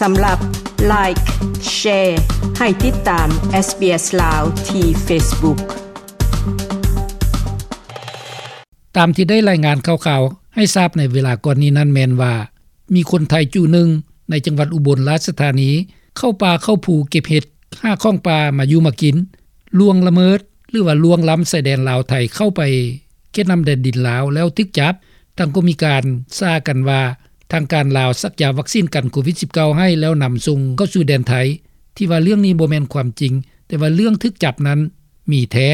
ສຳລັບ Like, Share ໃຫ້ຕິດຕາມ SBS ລາວ ທີ່ Facebook. ຕາມທີ່ໄດ້ລາຍງານຂ່າວໆໃຫ້ຊາບໃນເວລາກ່ອນນີ້ນັ້ນແມ່ນວ່າ ມີຄົນໄທຈຸໜຶ່ງໃນຈັງຫວັດອຸບົນລາຊະທານີ ເຂົ້າປ່າເຂົ້າພູເກັບເຫັດ ຫາຂອງປ່າມາຢູ່ມາກິນ ລ່ວງລະເມີດ ຫຼືວ່າລ່ວງລ້ຳຊາຍແດນລາວໄທເຂົ້າໄປເຂດນ້ຳແດນດິນລາວແລ້ວຖືກຈັບ. ທາງກໍມີການສ້າກັນວ່າ ທາງການລາວສັກຢາວັກຊີນກັນໂຄວິດສິບເກົ້າໃຫ້ແລ້ວນຳສົ່ງເຂົ້າສູ່ແດນໄທ ທີ່ວ່າເລື່ອງນີ້ບໍ່ແມ່ນຄວາມຈິງ ແຕ່ວ່າເລື່ອງຖືກຈັບນັ້ນມີແທ້.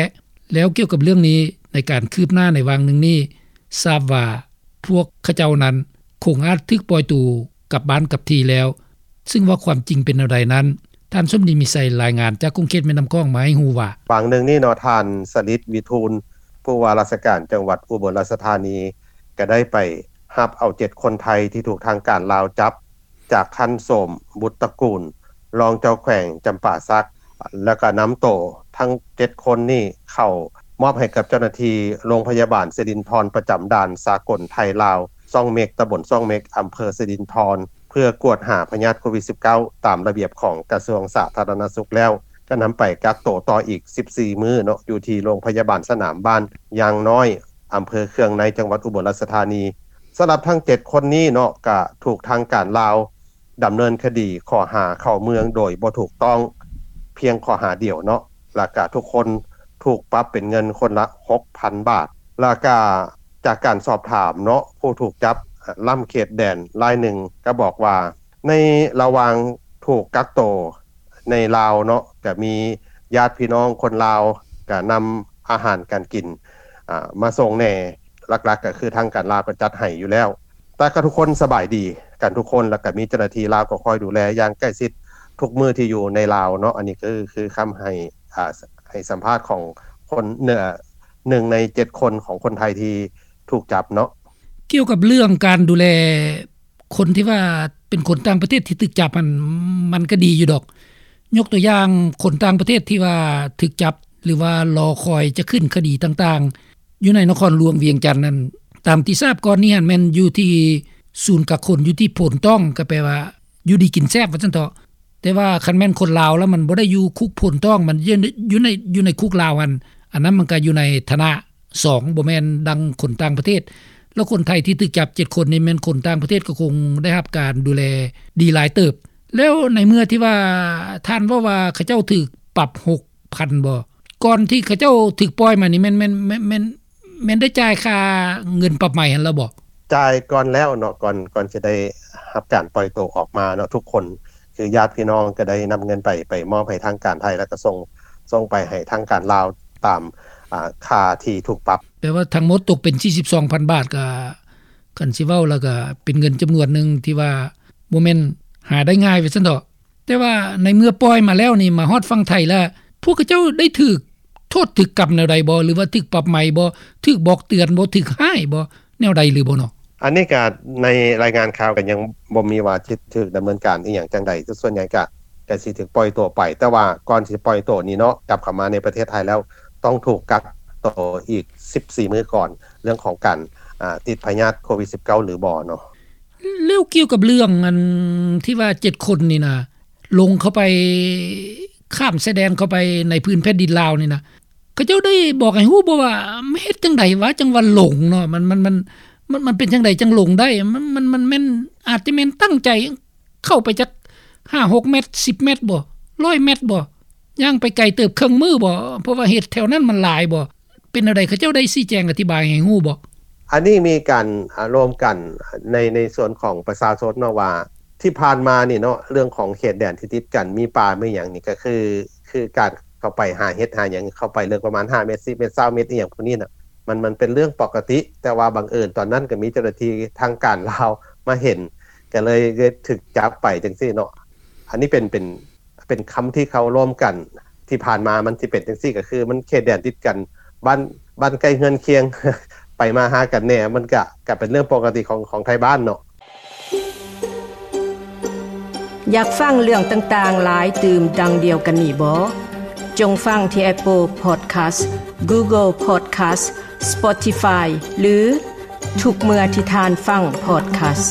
ແລ້ວກ່ຽວກັບເລື່ອງນີ້ ໃນການຄືບໜ້າໃນຫວ່າງໜຶ່ງນີ້ ຊາບວ່າພວກເຂົາເຈົ້ານັ້ນຄົງອາດຖືກປ່ອຍໂຕກັບບ້ານກັບທີ່ແລ້ວ ຊຶ່ງວ່າຄວາມຈິງເປັນແນວໃດນັ້ນ ທ່ານສົມດີ ມີໄຊ ລາຍງານຈາກຂົງເຂດແມ່ນ້ຳຂອງມາໃຫ້ຮູ້ວ່າ ຫວ່າງໜຶ່ງນີ້ເນາະ ທ່ານ ສະລິດ ວິທູນ ຜູ້ວ່າລາຊະການຈັງຫວັດອຸບົນລາຊະທານີ ກໍໄດ້ໄປຮັບເອົາເຈັດຄົນໄທທີ່ຖືກທາງການລາວຈັບ ຈາກທ່ານ ໂສມ ບຸດຕະກູນ ຮອງເຈົ້າແຂວງຈຳປາສັກ ແລ້ວກໍນຳໂຕທັງເຈັດຄົນນີ້ເຂົ້າມອບໃຫ້ກັບເຈົ້າໜ້າທີ່ໂຮງພະຍາບານສິລິນທອນ ປະຈຳດ່ານສາກົນໄທລາວ ຊ່ອງເມັກ ຕຳບົນຊ່ອງເມັກ ອຳເພີສິລິນທອນ ເພື່ອກວດຫາພະຍາດໂຄວິດສິບເກົ້າ ຕາມລະບຽບຂອງກະຊວງສາທາລະນະສຸກແລ້ວ ກໍນຳໄປກັກໂຕຕໍ່ອີກສິບສີ່ມື້ເນາະ ຢູ່ທີ່ໂຮງພະຍາບານສະໜາມບ້ານຢາງນ້ອຍ ອຳເພີເຄືອງໃນ ຈັງຫວັດອຸບົນລາຊະທານີ. ສຳລັບທັງເຈັດຄົນນີ້ເນາະ ກະຖືກທາງການລາວດຳເນີນຄະດີຂໍ້ຫາເຂົ້າເມືອງໂດຍບໍ່ຖືກຕ້ອງ ພຽງຂໍ້ຫາດຽວເນາະ ແລ້ວກະທຸກຄົນຖືກປັບເປັນເງິນຄົນລະຫົກພັນບາດ. ແລ້ວກະຈາກການສອບຖາມເນາະ ຜູ້ຖືກຈັບລ້ຳເຂດແດນລາຍໜຶ່ງກໍບອກວ່າ ໃນລະຫວ່າງຖືກກັກໂຕໃນລາວເນາະ ກະມີຍາດພີ່ນ້ອງຄົນລາວກະນຳອາຫານການກິນ ອາ ມາສົ່ງແດ່ ຫຼັກໆກໍຄືທາງການລາວກໍຈັດໃຫ້ຢູ່ແລ້ວ ແຕ່ກໍທຸກຄົນສະບາຍດີກັນທຸກຄົນ ແລ້ວກໍມີເຈົ້າໜ້າທີ່ລາວກໍຄອຍດູແລຢ່າງໃກ້ຊິດທຸກມື້ທີ່ຢູ່ໃນລາວເນາະ. ອັນນີ້ກໍຄື ຄືຄຳໃຫ້ ອາ ໃຫ້ສຳພາດຂອງຄົນ ເອີ ໜຶ່ງໃນເຈັດຄົນຂອງຄົນໄທທີ່ຖືກຈັບເນາະ. ກ່ຽວກັບເລື່ອງການດູແລ ຄົນທີ່ວ່າເປັນຄົນຕ່າງປະເທດທີ່ຖືກຈັບຫັ້ນ ມັນກໍດີຢູ່ດອກ. ຍົກຕົວຢ່າງຄົນຕ່າງປະເທດທີ່ວ່າຖືກຈັບ ຫຼືວ່າລໍຄອຍຈະຂຶ້ນຄະດີຕ່າງໆ ຢູ່ໃນນະຄອນຫຼວງວຽງຈັນນັ້ນ ຕາມທີ່ຊາບກ່ອນນີ້ຫັ້ນແມ່ນຢູ່ທີ່ສູນກັກຄົນຢູ່ທີ່ໂພນຕ້ອງ ກໍແປວ່າຢູ່ດີກິນແຊບວ່າຊັ້ນເຖາະ. ແຕ່ວ່າຄັນແມ່ນຄົນລາວແລ້ວມັນບໍ່ໄດ້ຢູ່ຄຸກໂພນຕ້ອງ ມັນຢູ່ ຢູ່ໃນ ຢູ່ໃນຄຸກລາວຫັ້ນ ອັນນັ້ນມັນກໍຢູ່ໃນຖານະສອງ ບໍ່ແມ່ນດັ່ງຄົນຕ່າງປະເທດ ແລ້ວຄົນໄທທີ່ຖືກຈັບເຈັດຄົນນີ້ແມ່ນຄົນຕ່າງປະເທດ ກໍຄົງໄດ້ຮັບການດູແລດີຫຼາຍເຕີບ. ແລ້ວໃນເມື່ອທີ່ວ່າທ່ານເວົ້າວ່າເຂົາເຈົ້າຖືກປັບຫົກພັນບໍ ກ່ອນທີ່ເຂົາເຈົ້າຖືກປ່ອຍມານີ້ແມ່ນ ແມ່ນ ແມ່ນ ແມ່ນ ແມ່ນໄດ້ຈ່າຍຄ່າເງິນປັບໃໝຫັ້ນແລ້ວບໍ? ຈ່າຍກ່ອນແລ້ວເນາະ ກ່ອນ ກ່ອນຊິໄດ້ຮັບການປ່ອຍໂຕອອກມາເນາະ ທຸກຄົນ ຄືຍາດພີ່ນ້ອງກໍໄດ້ນຳເງິນໄປ ໄປມອບໃຫ້ທາງການໄທ ແລ້ວກໍສົ່ງ ສົ່ງໄປໃຫ້ທາງການລາວຕາມ ອາ ຄ່າທີ່ຖືກປັບ. ແປວ່າທັງໝົດຕົກເປັນສີ່ສິບສອງພັນບາດ ກໍ ຄັນຊິເວົ້າແລ້ວກໍເປັນເງິນຈຳນວນໜຶ່ງທີ່ວ່າບໍ່ແມ່ນຫາໄດ້ງ່າຍວ່າຊັ້ນເຖາະ. ແຕ່ວ່າໃນເມື່ອປ່ອຍມາແລ້ວນີ້ ມາຮອດຝັ່ງໄທແລ້ວ ພວກເຂົາເຈົ້າໄດ້ຖືກໂທດຖືກກຳແນວໃດບໍ່ ຫຼືວ່າຖືກປັບໃໝບໍ່ ຖືກບອກເຕືອນບໍ່ ຖືກຮ້າຍບໍ່ ແນວໃດຫຼືບໍ່ເນາະ? ອັນນີ້ກະໃນລາຍງານຂ່າວກະຍັງບໍ່ມີວ່າຊິຖືກດຳເນີນການອີ່ຫຍັງຈັ່ງໃດ ສ່ວນໃຫຍ່ກະ ກະຊິຖືກປ່ອຍຕົວໄປ ແຕ່ວ່າກ່ອນຊິປ່ອຍຕົວນີ້ເນາະ ກັບເຂົ້າມາໃນປະເທດໄທແລ້ວ ຕ້ອງຖືກກັກໂຕອີກສິບສີ່ມື້ກ່ອນ ເລື່ອງຂອງການ ອາ ຕິດພະຍາດໂຄວິດສິບເກົ້າ ຫຼືບໍ່ເນາະ. ແລ້ວກ່ຽວກັບເລື່ອງອັນທີ່ວ່າເຈັດຄົນນີ້ນະ ລົງເຂົ້າໄປ ຂ້າມຊາຍແດນເຂົ້າໄປໃນພື້ນແຜ່ນດິນລາວນີ້ນະ ເຂົາເຈົ້າໄດ້ບອກໃຫ້ຮູ້ບໍ່ວ່າເຮັດຈັ່ງໃດວະ ຈັ່ງວ່າຫຼົງເນາະ ມັນ ມັນ ມັນ ມັນ ມັນເປັນຈັ່ງໃດຈັ່ງຫຼົງໄດ້ ມັນ ມັນ ມັນແມ່ນ ອາດຈະແມ່ນຕັ້ງໃຈເຂົ້າໄປຈັກຫ້າຫົກແມັດ ສິບແມັດບໍ່ ຮ້ອຍແມັດບໍ່ ຍ່າງໄປໄກເຕີບເຄິ່ງມື້ບໍ່ ເພາະວ່າເຂດແຖວນັ້ນມັນຫຼາຍບໍ່? ເປັນແນວໃດ ເຂົາເຈົ້າໄດ້ຊີ້ແຈງອະທິບາຍໃຫ້ຮູ້ບໍ່? ອັນນີ້ມີການ ອາ ລວມກັນໃນ ໃນສ່ວນຂອງປະຊາຊົນເນາະ ວ່າທີ່ຜ່ານມານີ້ເນາະ ເລື່ອງຂອງເຂດແດນທີ່ຕິດກັນ ມີປ່າມີຫຍັງນີ້ ກໍຄື ຄືການເຂົ້າໄປຫາເຫັດຫາຫຍັງ ເຂົ້າໄປເລິກປະມານຫ້າແມັດ ສິບແມັດ ຊາວແມັດ ອີ່ຫຍັງພວກນີ້ນະ ມັນ ມັນເປັນເລື່ອງປົກກະຕິ ແຕ່ວ່າບັງເອີນຕອນນັ້ນກໍມີເຈົ້າໜ້າທີ່ທາງການລາວມາເຫັນ ກໍເລີຍ ເລີຍຖືກຈັບໄປຈັ່ງຊີ້ເນາະ. ອັນນີ້ເປັນ ເປັນ ເປັນຄຳທີ່ເຂົາລວມກັນ ທີ່ຜ່ານມາມັນຊິເປັນຈັ່ງຊີ້ ກໍຄືມັນເຂດແດນຕິດກັນ ບ້ານ ບ້ານໃກ້ເຮືອນຄຽງ ໄປມາຫາກັນແດ່ ມັນກະ ກະເປັນເລື່ອງປົກກະຕິຂອງ ຂອງໄທບ້ານເນາະ. ຢາກຟັງເລື່ອງຕ່າງໆຫຼາຍຕື່ມດັ່ງດຽວກັນນີ້ບໍ? ຈົ່ງຟັງທີ່ Apple Podcast, Google Podcast, Spotify ຫຼື ທຸກເມື່ອທີ່ທ່ານຟັງ Podcast.